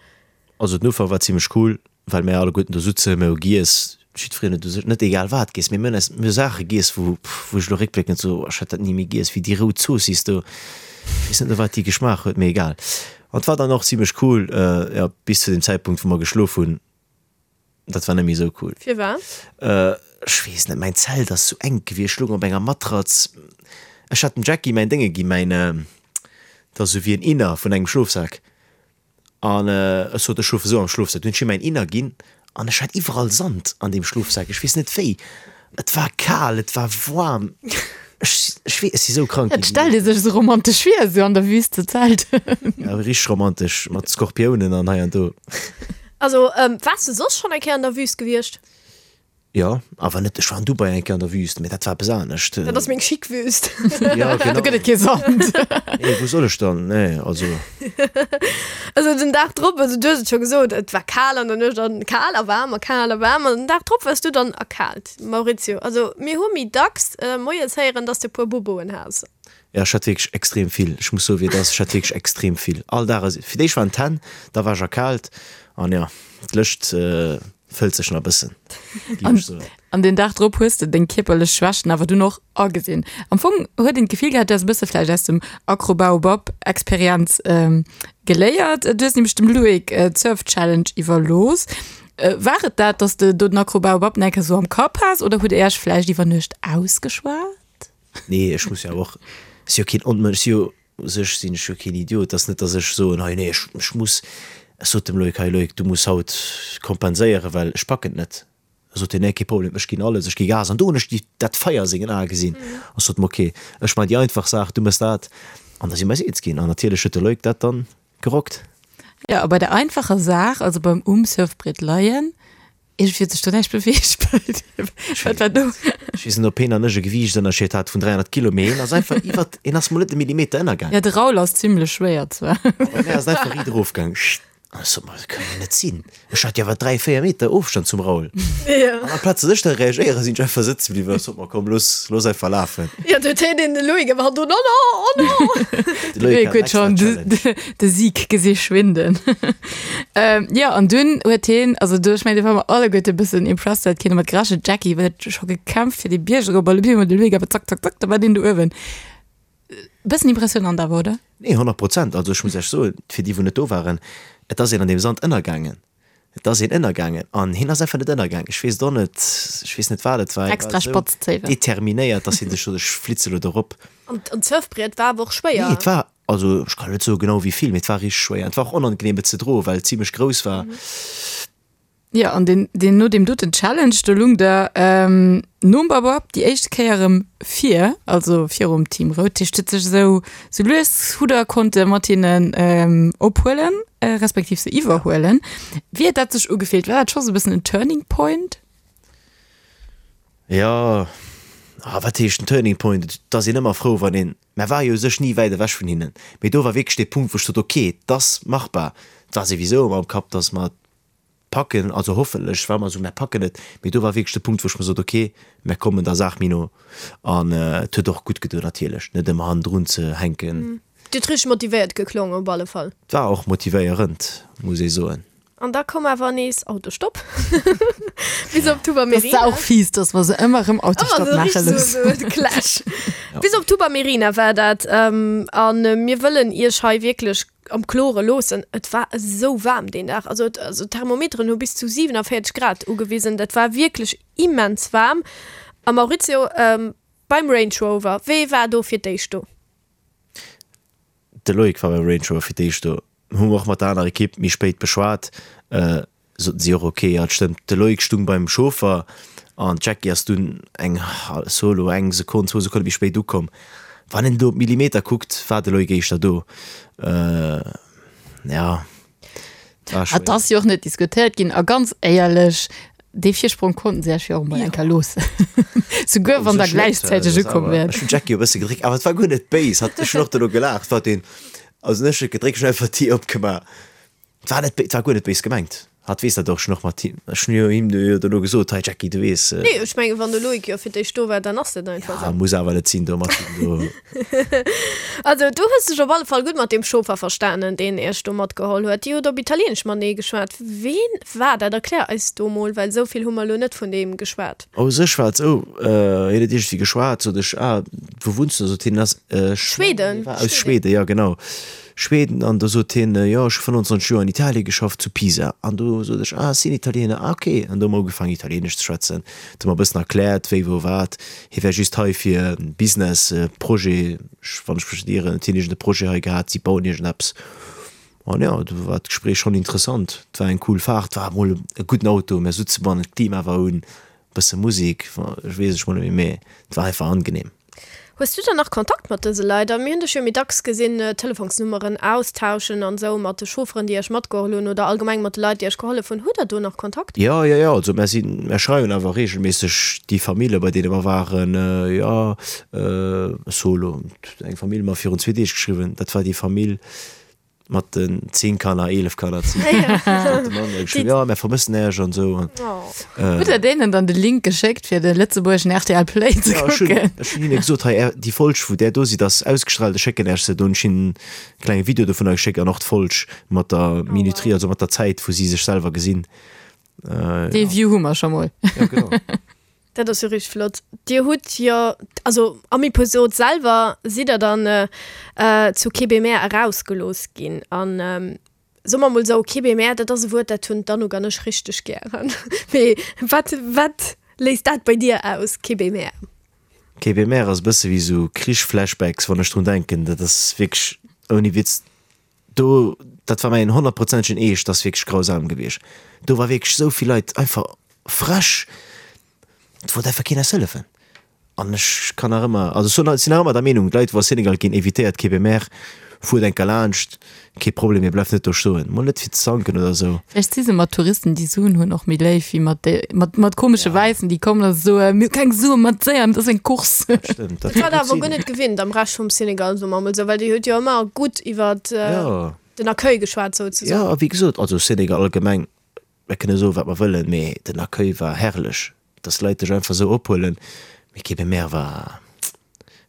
Also den Ufank war zimlech cool, well mär alleguerten do sutzen, mir hu giess, jiddwereen huet u sech net egal wat giess, mee mir hunn eis, mir hu Saache giess, wou, wou ech elo réckbléckend soe, ech hätt dat ni méi giess, wéi déi rout Zoossiss do, ech weess net no wat déi geschmaach huet, mee egal. An et war dann och zimlech cool, jo, bis zu dem Zäitpunkt, wou mer geschlof hunn, dat war net méi esou cool. Firwat? Ech weess net, mäin Zelt ass sou enk gewiescht, ech loung op enger Matratz, ech hat dem Jackie mäin Dénge ginn, mäin, dat ass esou wéi en Inner vun engem Schlofsak. An ech sot, ech schlofe sou am Schlofsak. Dunn hunn ech him mäin Inner ginn an ech hat iwwerall Sand an deem Schlofsak. Ech weess net wéi. Et war kal, et war waarm. Ech, ech weess, ech si sou krank Dat ginn. stellt ee sech sou romantesch vir, sou an der Wüst ze zelten. Ja, richteg romantesch, mat Skorpiounen an hei an do. Also, waars de soss schonn eng Kéier an der Wüst gewiescht? Jo, awer net, ech war an Dubai eng Kéier an der Wüst, mee dat war eppes anescht. Dat ass meng chic Wüst. Ja, genau. Do gëtt et kee Sand. Nee, wou soll ech dann? Nee, also. Also den Dag drop, also du hues et scho gesot, et war kal an der Nuecht an kal a waarm a kal a waarm an den Dag drop waars du dann erkaalt, Maurizio. Also mir hu méi dacks moies héieren, dass de e puer Boboen has. Ja, ech hat wierklech extrem vill. Ech muss soen, wéi et ass, ech hat wierklech extrem vill. All Dag, also fir d'éischt waren d'Hänn, da war ech erkaalt an jo, d'Lëscht fëllt sech nach e bëssen, géif ech soen. An den Dag drop hues de deng kierperlech Schwächten awer dunn och agesinn. Am Fong huet een d'Gefill gehat, du häss e bësse vläicht aus dem Acrobaobab Experienz geléiert. Du hues nämlech dem Loïc d'Surf Challenge iwwerlooss. War et dat, dass de do den Acrobaobab nach eng Kéier sou am Kapp has oder hutt Är Iech vläicht iwwer Nuecht ausgeschwat? Nee, ech muss jo awer och, ech si jo keen Onmënsch, ech si jo u sech sinn ech jo keen Idiot, et ass net, datt ech soen, hei nee, ech, ech muss, ech sot dem Loïc, hei Loïc, du muss haut kompenséieren, well ech packen et net. Da sot hien, nee, kee Problem, ech ginn alles, ech gi Gas. An do hunn ech déi, dat Feier a sengen Ae gesinn. An ech sot em, ok, ech maachen déi einfach Saach, du méchs dat. An da si mer eis eens ginn. An natierlech huet de Loïc dat dann gerockt. Jo, a bei der einfacher Saach, also beim um Surfbriet leien, Iergendwéi huet sech do näischt beweegt bei dir. Wat war do? Ech weess net, ob heen an ech e Gewiichtënnerscheed hat vun 300 Kilo, mee heen ass einfach iwwert, heen ass mol net e Millimeter ënnergaang. Ja, de Raoul ass zimlech schwéier zwar. Bei mär ass en einfach riit erofgaang. An ech sot mer, dat kann jo net sinn. Ech hat jo awer 3, 4 Meter Ofstand zum Raoul. An amplaz datt ech da reagéieren, sinn ech einfach sëtze bliwwen a sot mer, komm, looss, looss einfach lafen. Jo, do huet heen den Loïc awer do, no, no, oh no! De Loïc huet schonn de Sieg gesi schwinden. Jo, an dunn huet heen, also do, ech mengen, do ware mer alleguerte e bëssen impressed, well et keen domat gerechent. D'Jackie huet scho gekämpft fir dee Bierg erop a op eemol de Loïc awer zack, zack, zack, da war deen do uewen. Bëssen impressionant awer, oder? Nee, 100 Prozent. Also ech muss Iech soen, fir déi wou net do waren, et ass een an deem Sand ënnergaangen. Et ass een ënnergaangen an hien ass einfach net ënnergaangen. Ech weess et och net, ech weess net wat et war. Hie Extra war esou spatz Zéiwen. determinéiert, dass hien sech sot, ech flitze lo do rop. An d'Surfbriet war awer och schwéier. Nee, et war, also ech kann net soe genau wéi vill, mee et war richteg schwéier. Et war och onangenehm et ze droen, well et zimlech grouss war. Jo, an deen, deen no deem doten Challenge, do lung der nom Babab déi éischt Kéier erëm vir, also virum Team Rout. Dat heescht, huet sech esou, sou lues hutt der konnte mat hinnen ophuelen, respektiv se iwwerhuelen. Wéi huet dat sech ugefillt? War dat scho sou e bëssen en Turning Point? Jo, ah, wat heescht en Turning Point? Et ass een ëmmer frou, wann een, mä war jo u sech ni wäit ewech vun hinnen, mee do war wierklech dee Punkt, wou ech sot, ok, et ass machbar. Et war souwisou ëmmer am Kapp, datt mer packen, also hoffentlech war mer esou, mär packen et, mee do war wierklech de Punkt, wou ech mer sot, ok, mär kommen der Saach méi no an et huet och gutt gedoen natierlech, net ëmmer hannendrun ze hänken. Dir hutt richteg motivéiert geklongen op alle Fall. Et war och motivéierend, muss ee soen. An da koum awer nees Autostopp bis op Tuba Merina. Dat ass och fies, dass mer se ëmmer erëm Autostopp maache loossen. Ëmmer esou richteg esou de Clash. Bis op Tuba Merina war dat an mir wëllen iech hei wierklech am Klore loossen, et war esou waarm deen Dag, also et, also d'Thermometeren hu bis zu 47 Grad ugewisen, dat war wierklech immens waarm. A Maurizio, beim Range Rover, wee war do fir d'éischt do? De Loïc war beim Range Rover fir d'éischt do, hu mer och mat der anerer Ekipp méi spéit beschwat. Soten si och, ok, jo, et stëmmt, de Loïc stung beim Chauffer an d'Jackie ass dunn eng solo eng Sekonn, zwou Sekonne méi spéit ukomm. Wann een do op d'Millimeter kuckt, war de Loïc éischter do. Ja, et war Et schwéier. ass jo och net diskutéiert ginn a ganz éierlech, dee Virsprong konnten se Iech jo och emol eng Kéier loossen, souguer wann der gläichzäiteg ukomm wäert. Ech hunn d'Jackie e bësse gedréckt, awer et war guer net béis, hat, ech hunn och dono gelaacht, wat een, also ech hunn net gedréckt, ech hunn einfach d'Dier opgemaach. Et war net, et war guer net béis gemengt. Hatt weess dat och schon och mat him. Ech hunn jo him jo dono gesot, hei Jackie, du weess. Nee, ech mengen, wann de Loïc jo fir d'éischt do war, dann ass dat einfach Ja, esou. muss awer net sinn do mat him do. Also, du hues dech op alle Fall gutt mat deem Chauffer verstanen, deen iech do matgeholl huet. Dir hutt op Italieenesch matenee geschwat. Ween war dat? Erklär eis do mol, well esou vill hu mer elo net vun deem geschwat. U sech war et esou, hien huet iergendwéi geschwat, sot ech, ah, wou wunns du? Sot hien, ass, ech Schweden. war aus Schweden, ja genau. Schweden an do sot hien, jo ech hu 25 Joer an Italie geschafft, zu Pisa. An do sot ech, ah ech sinn Italiener, ah ok. An do hu mer ugefaangen Italienesch ze schwätzen, et hu mer e bëssen erkläert wéi wou wat. Hie wär just hei fir e Business Projet, wann ech mech net ieren, huet hien iergend e Projet hei gehat, si bauen iergendeppes. An jo, do war d'Gespréich schonn interessant. Et war eng cool Faart, war emol e gudden Auto, mir sutze bannen, d'Klima war un, bësse Musek, ech weess ech mol net méi, mee et war einfach angenehm. Hues du dann nach Kontakt mat dëse Leit? A mir hunn dech jo méi dacks gesinn Telefonsnummeren austauschen an esou mat de Chaufferen, déi iech matgeholl hunn oder allgemeng mat de Leit, déi iech gehollef hunn. Hutt der do nach Kontakt? Jo, jo, jo. Also mär sinn, mär schreiwen awer reegelméisseg déi Famille, bei deene mer waren. Jo, ech soe lo, eng Famill mer virun zwee Deeg geschriwwen, dat war déi Famill, Mat den 10 Kanner, 11 Kanner, 10 Kanner, ja, mär vermëssen Äech an esou. Hutt der deenen dann de Link geschéckt fir de lëtzebuergeschen rtl Play ze kucken? Ech hunn hinne gesot, hei déi Folg wou där do sidd ass ausgestrahlt, ech schécken Äech se. Do hunn ech hinnen e klenge Video dovunner geschéckt an och d'Folg mat der Minuterie, also mat der Zäit wou si sech selwer gesinn. Dee View hu mer scho mol. Ja, genau. Dat ass jo richteg flott. Dir hutt jo, also am Episod selwer sidd der dann zu Kébémer erausgelooss ginn. An soe mer mol esou, Kébémer, dat ass e Wuert, dat hunn d'Anouk an ech richteg gären. Mee wat, wat léist dat bei dir aus, Kébémer? Kébémer ass e bësse wéi esou Krich-Flashbacks, wann ech drun denken. Dat ass wierklech, ouni Witz, do, dat war mäin honnertprozentegen Eescht, dat ass wierklech grausam gewiescht. Do war wierklech esou vill Leit einfach frech, et wollt einfach keen eis hëllefen. An ech kann nach ëmmer, also ech sinn nach ëmmer der Meenung, d'Leit wou a Senegal ginn, evitéiert Kébémer, fuert enker laanscht, kee Problem, mee bleift net do stoen, mol net fir ze zanken oder esou. Vläicht si se mat Touristen déi Suen hunn och méi léif wéi mat de mat mat komesche Wäissen déi kommen a soen, mir hu keng Suen, mat séier, dat ass eng Course. Dat stëmmt, dat kann gutt sinn. Guer net gewinnt am Rescht vum Senegal, soe mer emol esou, well Dir hutt jo ëmmer gutt iwwert den Accueil geschwat souzesoen. Jo, a wéi gesot, also Senegal allgemeng, Mir kënne soen, wat mer wëllen, mee den Accueil war herrlech. Dass d'Leit dech einfach esou ophuelen, mee Kébémer war,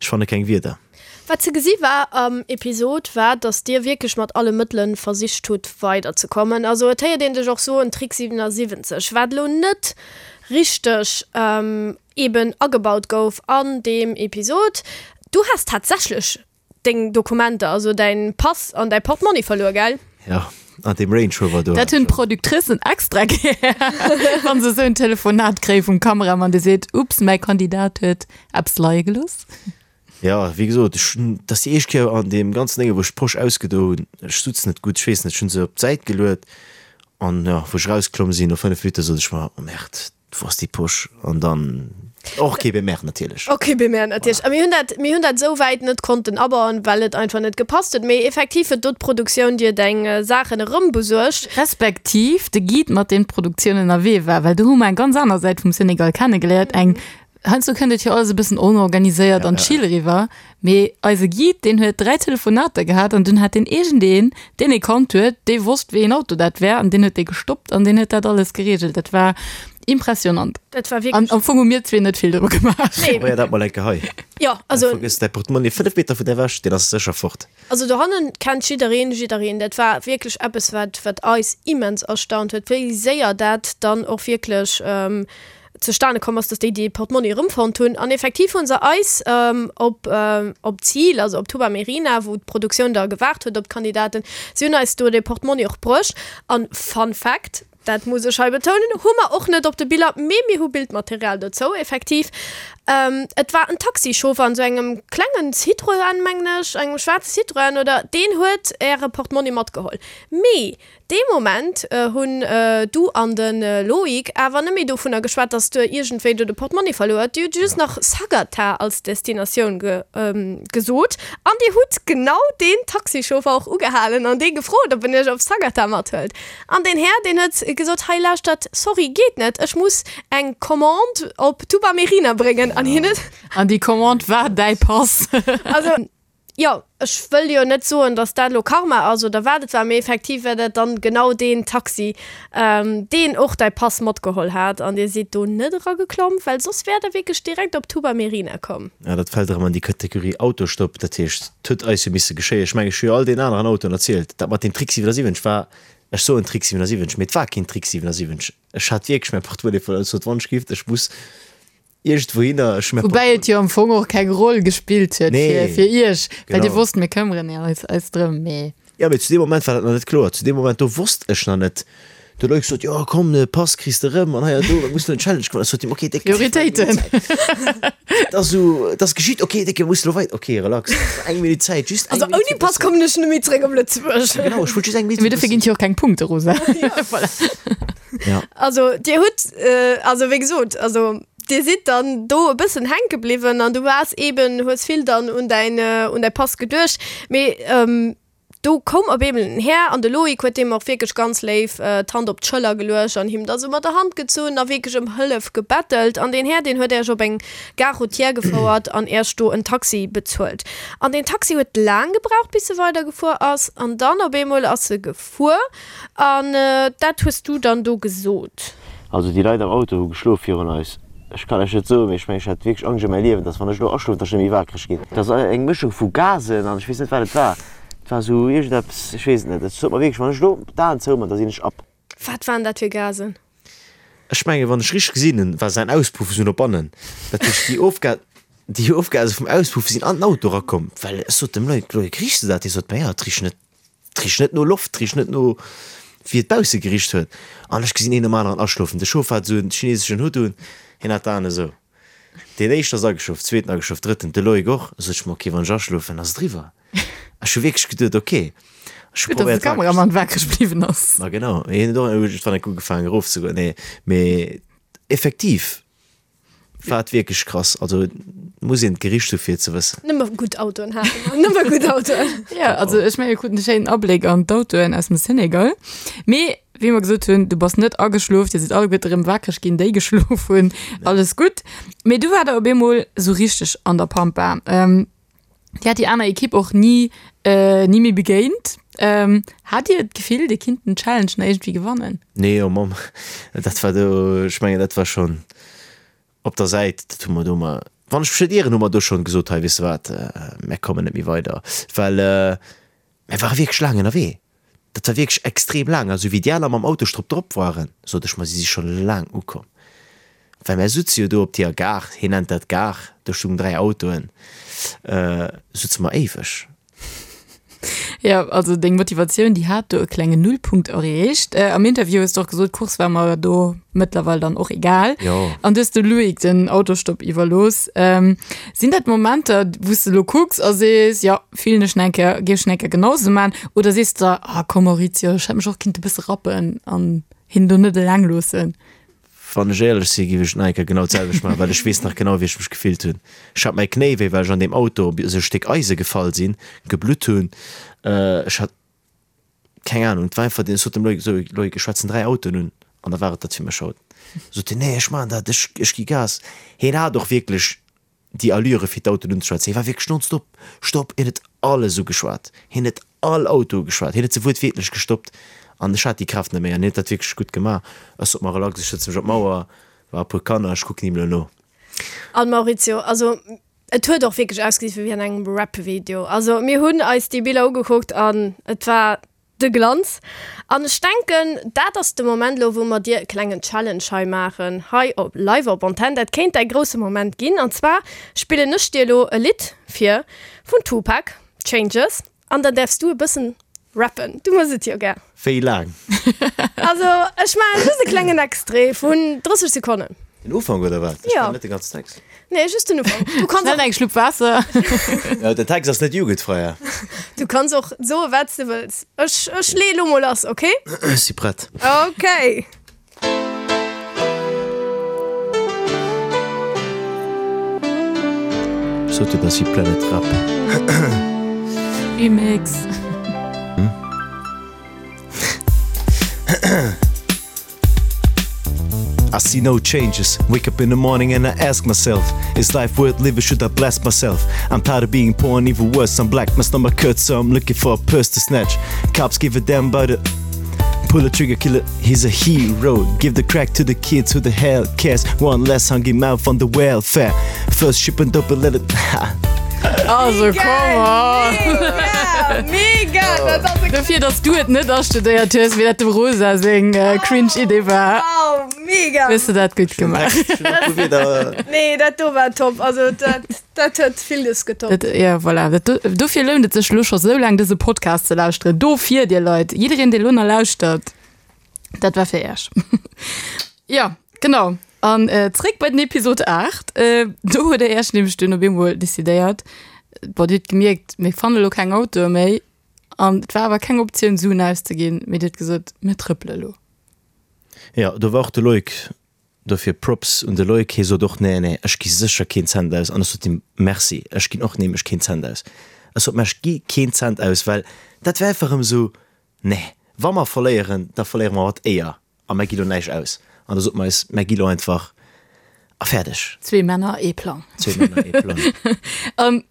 ech fanne keng Wierder. Wat ze gesi war am Episod war, dass dir wierklech mat alle Mëttelen versicht hutt weider ze kommen. Also et héiert een dech och soen Trick 77, wat elo net richteg eben agebaut gouf an deem Episod. Du has tatsächlech Deng Dokumenter, also däin Pass an däi Portmonni verluer, gell? Jo, an deem Range Rover do. Dat hunn d'Productricen extra gär, wann se esou en Telefonat kréie vum Kameramann, dee seet, Ups, mäi Kandidat huet eppes leie gelooss. Jo, wéi gesot, ech hunn, dat ass déi éischt Kéier an deem ganzen Dénge wou ech d'Posch ausgedo hunn, ech sutz net gutt, ech weess net, ech hunn se op d'Säit geluet an jo, wou ech erausklomm sinn no 5 Minutte sot ech mer, oh Merde, Wou ass déi Posch? An dann och kee Bemer natierlech. Och kee Bemer natierlech. A mir hunn dat, mir hunn dat esou wäit net konnten abauen, well et einfach net gepasst huet. Mee effektiv huet do d'Produktioun dir deng Saachen erëmbesuergt. Respektiv de Guide, mat deem d'Produktioun ënnerwee war, well do hu mer eng ganz aner Säit vum Senegal kennegeléiert, eng, heiansdo kënnt et jo alles e bëssen onorganiséiert an chill eriwwer, Mee eise Guide, deen huet 3 Telefonater gehat an dunn hat deen iergendeen, deen e kannt huet, dee wosst, wéi een Auto dat wär an deen huet dee gestoppt an deen huet dat alles gereegelt. Dat war impressionant. Dat war wierklech. An am Fong hu mir zwee net vill dru gemaach. Nee. Probéier dat mol eng Kéier hei. Jo, also. Vergëss däi Portemonnaie 5 Meter vun der ewech, deen ass sécher fort. Also dohannen kennt jiddereen jiddereen. Dat war wierklech eppes, wat, wat eis immens erstaunt huet, wéi séier dat dann och wierklech zustane komm ass, dass déi dee Portmonni erëmfonnt hunn. An effektiv hu se eis op op d'Zil, also op Touba Mérina, wou d'Produktioun da gewaart huet op d'Kandidaten, si hunn eis do dee Portmonni och bruecht. An Fun Fact, dat muss ech hei betounen, hu mer och net op de Biller, mee mir hu Bildmaterial dozou, effektiv, et war en Taxichauffer an esou engem klengen Citroën, mengen ech, engem schwaarze Citroën oder, deen huet äre Portmonni matgeholl. Mee Dee Moment hunn du an de Loïc awer net méi dovunner geschwat, dass du iergendwéi do de Portmonni verluer huet. Dir hutt just nach Sagatha als Destinatioun gesot an dir hutt genau deen Taxichauffer och ugehalen an dee gefrot, ob en iech op Sagatha mathëlt. An deen Här, deen huet gesot, Hei lauschtert, sorry, geet net, ech muss eng Commande op Touba Mérina bréngen. An hien huet. An déi Commande war däi Pass. Also. Jo, ech wëll jo net soen, datt dat elo Karma ass oder wat et war, mee effektiv war dat dann genau deen Taxi, deen och däi Pass matgeholl hat an dir sidd do net erageklomm, well soss wäert der wierklech direkt op Touba Mérina komm. Ja, dat fält erëm an déi Kategorie Autostopp. Dat heescht, et huet eis jo misse geschéien. Ech mengen, ech hu jo all deenen aneren Autoen erzielt, dat mat deem Trick 77 war, ech soen Trick 77, mee et war keen Trick 77. Ech hat wierklech mäi Portemonnaie verluer. Ech sot, Wann ech giff, ech muss Iergendwouhinner, ech mäin Woubäi et jo am Fong och keng Roll gespillt huet fir, fir iech, well dir wosst, mir këmmeren eis, eis drëm, mee. Jo, mee zu deem Moment war dat nach net kloer. Zu deem Moment do wosst ech nach net. Do huet Loïc gesot, jo komm, de Pass kriss de rëm an hei an do, mir mussen elo en Challenge gewannen. Ech sot him, ok Déck, Prioritéiten. Et ass esou, et ass geschitt, ok Déck, mir mussen elo weider, ok relax, eng Minutt Zäit, just eng Also Minutt ouni fir Pass bëssen. kommen ech net méi zréck op Lëtzebuerg. Genau, ech wollt just eng Minutt Mee fir dofir bëssen. ginn et jo och keng Punkte, Rosa. Voilà. Ja. Also dir hutt, also wéi gesot, also. Dir sidd dann do e bëssen hänke bliwwen an du waars eben, hues vill dann un däin, un däi Pass geduecht. Mee do koum op eemol en Här an de Loïc huet deem och wierklech ganz léif d'Hand op d'Schëller geluecht an him da sou mat der Hand gezunn a wierklech ëm Hëllef gebettelt. An deen Här, deen huet Äech op eng Gare routière gefouert an Äech do en Taxi bezuelt. An deen Taxi huet laang gebraucht, bis e weidergefuer ass. An dann op eemol ass e gefuer an dat hues du dann do gesot. Also déi Leit am Auto hu geschlof virun eis. Ech kann lech net soen, mee ech mengen ech hat wierklech Angscht ëm mäi Liewen, dass wann ech elo aschlofen, dass ech net méi wakereg ginn. Dat ass eng Mëschung vu Gasen an ech weess net wat et war. Et war esou iergendeppes, ech weess et net. Et sot mer wierklech, wann ech elo d'Aen zouman, da sinn ech ab. Wat waren dat fir Gasen? Ech mengen, wann ech richteg gesinn hunn, war säin Auspuff esou no bannen. Dat heescht, déi Ofga déi Ofgase vum Auspuff sinn an den Auto erakomm. Well ech sot dem Loïc, Loïc, riechs de dat? Hie sot, Ma jo, et richt net, et richt net no Loft, et richt net no wéi et bausse gericht huet. An ech gesinn een nom aneren aschlofen. De Chauffer hat esou en chineseschen Hutt un, hien hat d'Aen esou. Deen éischten ass ageschlof, zweeten ageschlof, drëtten, de Loïc och. Sot ech mer, ok, wann ech aschlofen, ass et eriwwer. Ech hu wierklech geduet, ok, ech hu Gutt, dass de probéiert wakereg Kameramann wakereg bliwwen ass. Ma genau, hien huet och iergendwann enk ugefaangen erofzegoen. Nee, mee effektiv war et wierklech krass. Also muss een d'Gericht hu fir et ze wëssen. Nëmme gutt Autoen hate mer, nëmme gutt Autoen. Ja, also ech menge mir kruten e schéinen Abléck an d'Autoen aus dem Senegal. Mee wéi mer gesot hunn, du bass net ageschlof, dir sidd alleguerte erëm wakereg ginn, déi geschlof hunn, alles gutt. Mee du war der op eemol esou richteg an der Pampa. Dir hat déi aner Ekipp och ni ni méi begéint. Hat Dir d'Gefill, Dir kinnt den Challenge nach iergendwéi gewannen? Nee, oh Mamm, dat war do, ech mengen, dat war schonn op der Säit, dat hu mer do mar, wann ech mech net ieren, hu mer do schonn gesot, hei, weess de wat, mär kommen net méi weider, well mär ware wierklech laang ënnerwee. Dat war wierklech extrem laang. A sou wéi déi aner mam Auto strop drop waren, sot ech mer, si si scho laang ukomm. Well mär sutze jo do op deeër Gare, hien nennt dat Gare, do stungen 3 Autoen, sutze mer éiweg. Jo, also deng Motivatioun, déi hat do e klengen Nullpunkt erreecht. Am Interview hues de och gesot, d'Course war mer do mëttlerweil dann och egal. Jo. An du hues de Loïc den Autostopp iwwerlooss. Sinn dat Momenter, wou s de elo kucks a sees, jo, fillen ech nach eng Kéier, géif ech nach eng Kéier genau esou man? Oder sees de der, ah komm Maurizio, ech hätt mech och kinnt e bësse rappen an hien do net eleng loossen? Wann ech éierlech sinn, géif ech et nach eng Kéier genau d'selwecht maachen, well ech weess nach genau, wéi ech mech gefillt hunn. Ech hat mäi Knéi wéi, well ech an deem Auto op esou e Stéck Eise gefall sinn, geblutt hunn. Ech hat keng Ahnung, et war einfach, ech sot dem Loïc esou, Loïc, ech schwätzen 3 Autoen un an da war et dat fir mech haut. Sot hien, nee, ech maachen dat, ech, ech gi Gas. Hien hat och wierklech déi Allure fir d'Autoen unzeschwätzen. Hie war wierklech nonstop, Stopp, hien huet alles ugeschwat, hien huet all Auto ugeschwat, hien huet se wuertwiertlech gestoppt an ech hat déi Kraaft net méi an hien huet dat wierklech gutt gemaach. Ech sot mer relax, ech sëtze mech op d'Mauer, war e puer Kanner, ech kucken him elo no. An Maurizio, also et huet och wierklech ausgesinn wéi an engem Rap-Video. Also mir hunn eis déi Biller ugekuckt an et war De Glanz. An ech denken, dat ass de Moment elo, wou mer dir e klengen Challenge hei maachen, hei op live op Antenn. Dat kéint däi grousse Moment ginn. An zwar spillen ech dir elo e Lidd vir vun Tupac, Changes, an dann däerfs du e bëssen rappen. Du mëss et jo gär. Wéi laang? Also ech maachen just e klengen Extrait vun 30 Sekonnen. Den Ufank oder wat? Ech kennen net de ganzen Text. Nee, just den Ufank. Du kanns Schnell eng Schlupp Waasser. Ja, den Text ass net jugendfrei. Du kanns och soe wat s de wëlls. Ech, ech leeë lo mol lass, okay? Ech si prett. Okay. Ech sot jo, dass si Planet Rap. Remix. I see no changes. Wake up in the morning and I ask myself, is life worth living? Should I bless myself? I'm tired of being poor and even worse, I'm black. My stomach hurts, so I'm looking for a purse to snatch. Cops give a damn about it. Pull a trigger, kill it, he's a hero. Give the crack to the kids who the hell cares. One less hungry mouth on the welfare. First shipment up and let it. Also come on! Mega! Mega! Dat ass e Dofir, dass du et net astudéiert hues, wéi dat dem Rosa seng cringe Idee war. Wow, mega! Hues de dat gutt gemaach. Nee, dat do war top. Also dat, dat huet villes getoppt. Dat, ja, voilà. Dat do, dofir lount et sech elo scho sou laang dëse Podcast ze lauschteren. Dofir, dir Leit, jiddereen, dee lo nach lauschtert, dat war fir iech. Jo, genau. An zréck bei den Episod 8. Do huet der Iech nämlech dunn op eemol decidéiert, bon, Dir hutt gemierkt, mir fanne lo keng Autoe méi. An et war awer keng Optioun, Suen auszeginn, mee Dir hutt gesot, mir trëppele lo. Jo, do war och de Loïc. Dofir Props un de Loïc, hie sot och, nee, nee, ech gi sécher keen Cent aus. An ech sot him, Merci, ech ginn och nämlech keen Cent aus. Ech sot, mä ech gi keen Cent aus, well dat wär einfach erëm esou, nee, wa mer verléieren, da verléiere mer mat Éier a mer gi lo näischt aus. An da sot mer eis, mer gi lo einfach a fäerdeg. Zwee Männer, ee Plang. Zwee Männer, ee Plang. An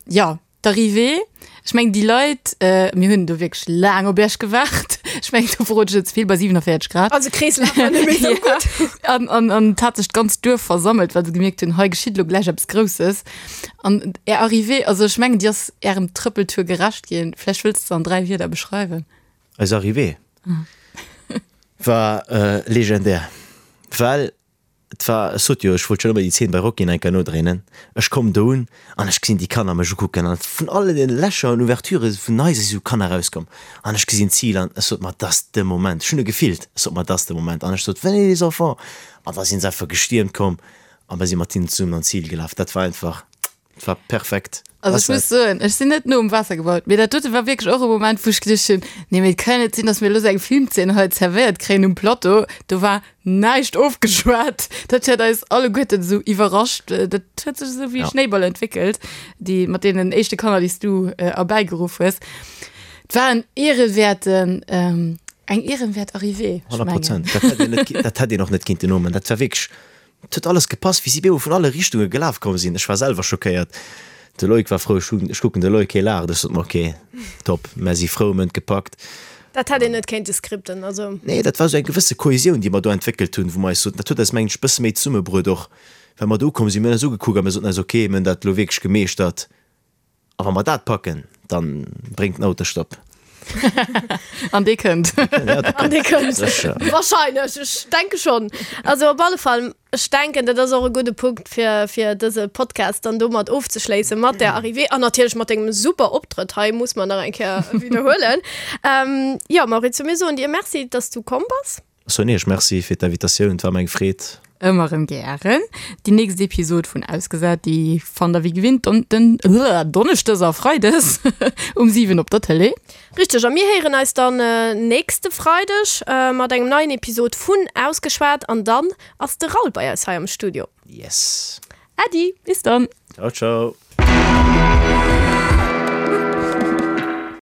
jo, D'Arrivée, ech mengen déi Leit, mir hunn do wierklech laang op Iech gewaart. Ech mengen do verrot ech net ze vill, bei 47 Grad. Also Kreeslaf war net méi esou gutt. An, an, an et hat sech d'ganzt Duerf versammelt, well se gemierkt hunn, hei geschitt elo gläich eppes Grousses. An Är Arrivée, also ech mengen déi ass Ärem Trëppeltour gerecht ginn. Vläicht wëlls de se an 3 Wierder beschreiwen? Eis Arrivée war legendär, well Et war, ech sot jo, ech wollt schonn ëmmer déi Zeen bei Rocky nach eng Kéier nodréinen. Ech komm do un an ech gesinn déi Kanner mech ukucken an vun alle den Lächer an Ouverturë vun Haiser si sou Kanner erauskomm an ech gesinn d'Zil an ech sot mer, 't ass de Moment. Ech hunn e gefillt, ech sot mer, 't ass de Moment an ech sot, Venez les enfants! An da sinn se einfach gestiermt komm a mer si mat hinnen zesummen an d'Zil gelaf. Dat war einfach. Et war perfekt. Also ech muss soen, ech sinn net no um Waasser gebaut, mee dat dote war wierklech och e Moment, wou ech geduecht hunn, nee mee et kann jo net sinn, datt mir elo esou eng Filmzeen hei zerwéiert kréien um Plateau. Do war näischt ofgeschwat. Dat huet eis alleguerten esou iwwerrascht. Dat huet sech esou wéi e Schnéiball entwéckelt, déi mat deenen éischte Kanner, déi s du erbäigeruff hues. Et war en ehrenwerten, eng ehrenwäert Arrivée, ech mengen. 100 Prozent. Dat hätt een net, dat hätt een och net kinnten nomen. Dat war wierklech Et huet alles gepasst, wéi si bemol vun alle Richtunge gelaf komm sinn. Ech war selwer schockéiert. De Loïc war frou. Ech kucken de Loïc, hie laacht. Ech sot mer, ok, top, mär si frou, mir hunn et gepackt. Dat hätt een net kéinte skripten, also. Nee, dat war esou eng gewësse Kohesioun, déi mer do entwéckelt hunn, wou mer eis soten, dat huet eis, mengen ech, e bësse méi zesummebruet och, well mer do ukomm sinn. Mir hunn eis ugekuckt a mir soten eis, ok, mir hunn dat elo wierklech gemeeschtert. A wa mer dat packen, dann bréngt den Autostopp. An dee kënnt. An dee kënnt. Sécher. Wahrscheinlech, ech denke schonn. Also op alle Fall, ech denken, dat ass och e gudde Punkt, fir, fir dëse Podcast dann domat ofzeschléissen, mat där Arrivée an natierlech mat dengem super Optrëtt hei, muss mer nach eng Kéier widderhuelen. Jo, Maurizio, mir soen dir Merci, dass du komm bass. Ech soen iech Merci fir d'Invitatioun, et war mer eng Freed. Ëmmer erëm gären. Déi nächst Episod vun Ausgesat, déi fannt der wéi gewinnt don, den, Donneschdes a Freides um 7 op der Tëlee. Richteg, a mir héieren eis dann nächste Freideg mat engem neien Episod vun Ausgeschwat an dann ass de Raoul bei eis hei am Studio. Yes! Äddi! Bis dann! Ciao, ciao!